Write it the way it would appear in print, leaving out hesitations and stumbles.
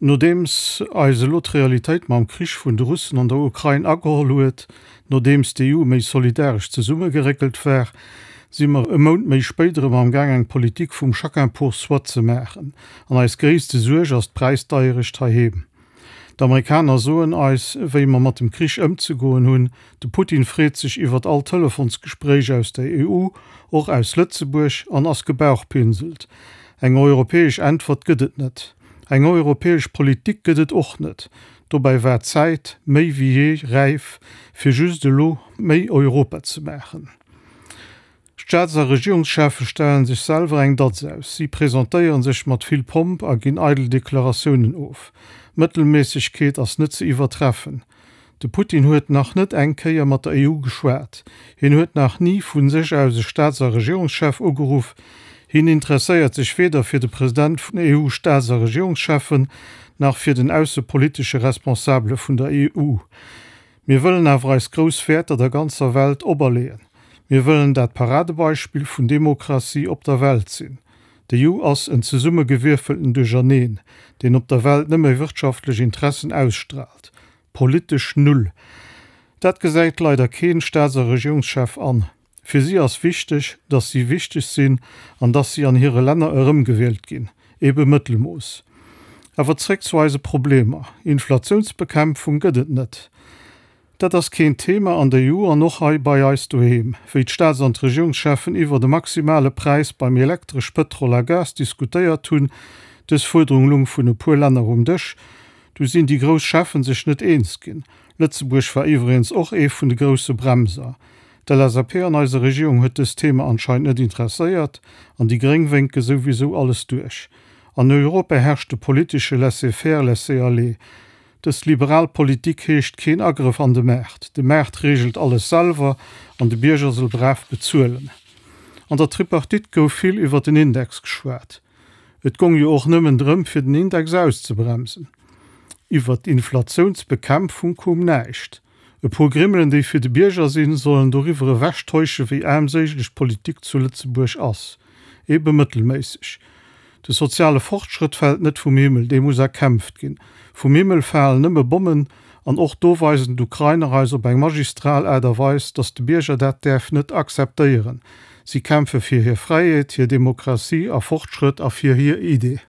Nodeems eis elo d'Realitéit mam Krich vun de Russen an der Ukrain ageholl huet, nodeems d'EU méi solidaresch zesummegeréckelt war, si mer e Mount méi spéit erëm am Gaang eng Politik vum chacun pour soi ze maachen. An eis gréisste Suerg ass d'Präisdeierecht heiheem. D'Amerikaner soen eis, wéi mer mat dem Krich ëmzegoen hunn. De Putin freet sech iwwert all Telefonsgespréich aus der EU, och aus Lëtzebuerg, an ass gebauchpinselt. Eng europäesch Äntwert gëtt et net. Eng europäesch Politik gëtt et och net. Dobäi war d'Zäit méi wéi jee räif, fir just elo méi Europa ze maachen. Staats a Regierungscheffe stellen sech selwer eng Datz aus. Si presentéiere sech mat vill Pomp a ginn eidel Deklaratiounen of. Mëttelméissegkeet ass net ze iwwertreffen. De Putin huet nach net eng Kéier mat der EU geschwat. Hien huet nach ni vu sech aus e Staats a Regierungschef ugeruff. Hien interesséiert sech weder fir de President vun EU-Staats a Regierungscheffen, nach fir den aussepolitesche Responsabele vun der EU. Mir wëllen awer eis grouss Wäerter der ganzer Welt operleeën. Mir wëllen dat Paradebeispill vun Demokratie op der Welt sinn. D'EU ass en zesummegewierfelten Duercherneen, deen op der Welt nëmme wirtschaftlech Interessen ausstraalt. Politesch null. Dat gesäit leider keen Staats a Regierungschef an. Fir si ass wichteg, dass si wichteg sinn an dass si an hire Länner erëmgewielt ginn. Ebe Mëttelmooss. Awer zréck zu eise Problemer. Inflatiounsbekämpfung gëtt et net. Dat ass keen Thema an der EU an och hei bei eis doheem. Wéi d'Staats an d'Regierungscheffen iwwert e maximale Präis beim Elektresch, Pëtrol a Gas diskutéiert hunn, dës Fuerderung lung vun e puer Länner um Dësch, du sinn déi grouss Cheffen sech net eens ginn. Lëtzebuerg war iwwregens och ee vun de grousse Bremser. D'LSAP an eiser Regierung huet dëst Thema anscheinend net interesséiert an déi Gréng wénke souwisou alles duerch. An Europa herrscht de politesche Laissez-faire, laissez-aller. Dës liberal Politik heescht keen Agrëff an de Maart. De Maart reegelt alles selwer an de Bierger soll brav bezuelen. An der Tripartite gouf vill iwwer den Index geschwat. Et gong jo och nëmmen drëm fir den Index auszebremsen. Iwwer d'Inflatiounsbekämpfung koum näischt. E puer Grimmelen déi fir de Bierger sinn, sollen doriwwer ewech täusche wéi aarmséiglech d'Politik zu Lëtzebuerg ass. Ebe mëttelméisseg. De soziale Fortschrëtt fält net vum Himmel, dee muss erkämpft ginn. Vum Himmel falen nëmme Bommen, an och do weisen d'Ukrainer eis op eng magistral Aart a Weis, datt de Bierger dat däerf net akzeptéieren. Si kämpfe fir hir Fräiheet, hir Demokratie a Fortschrëtt a fir hir Idee.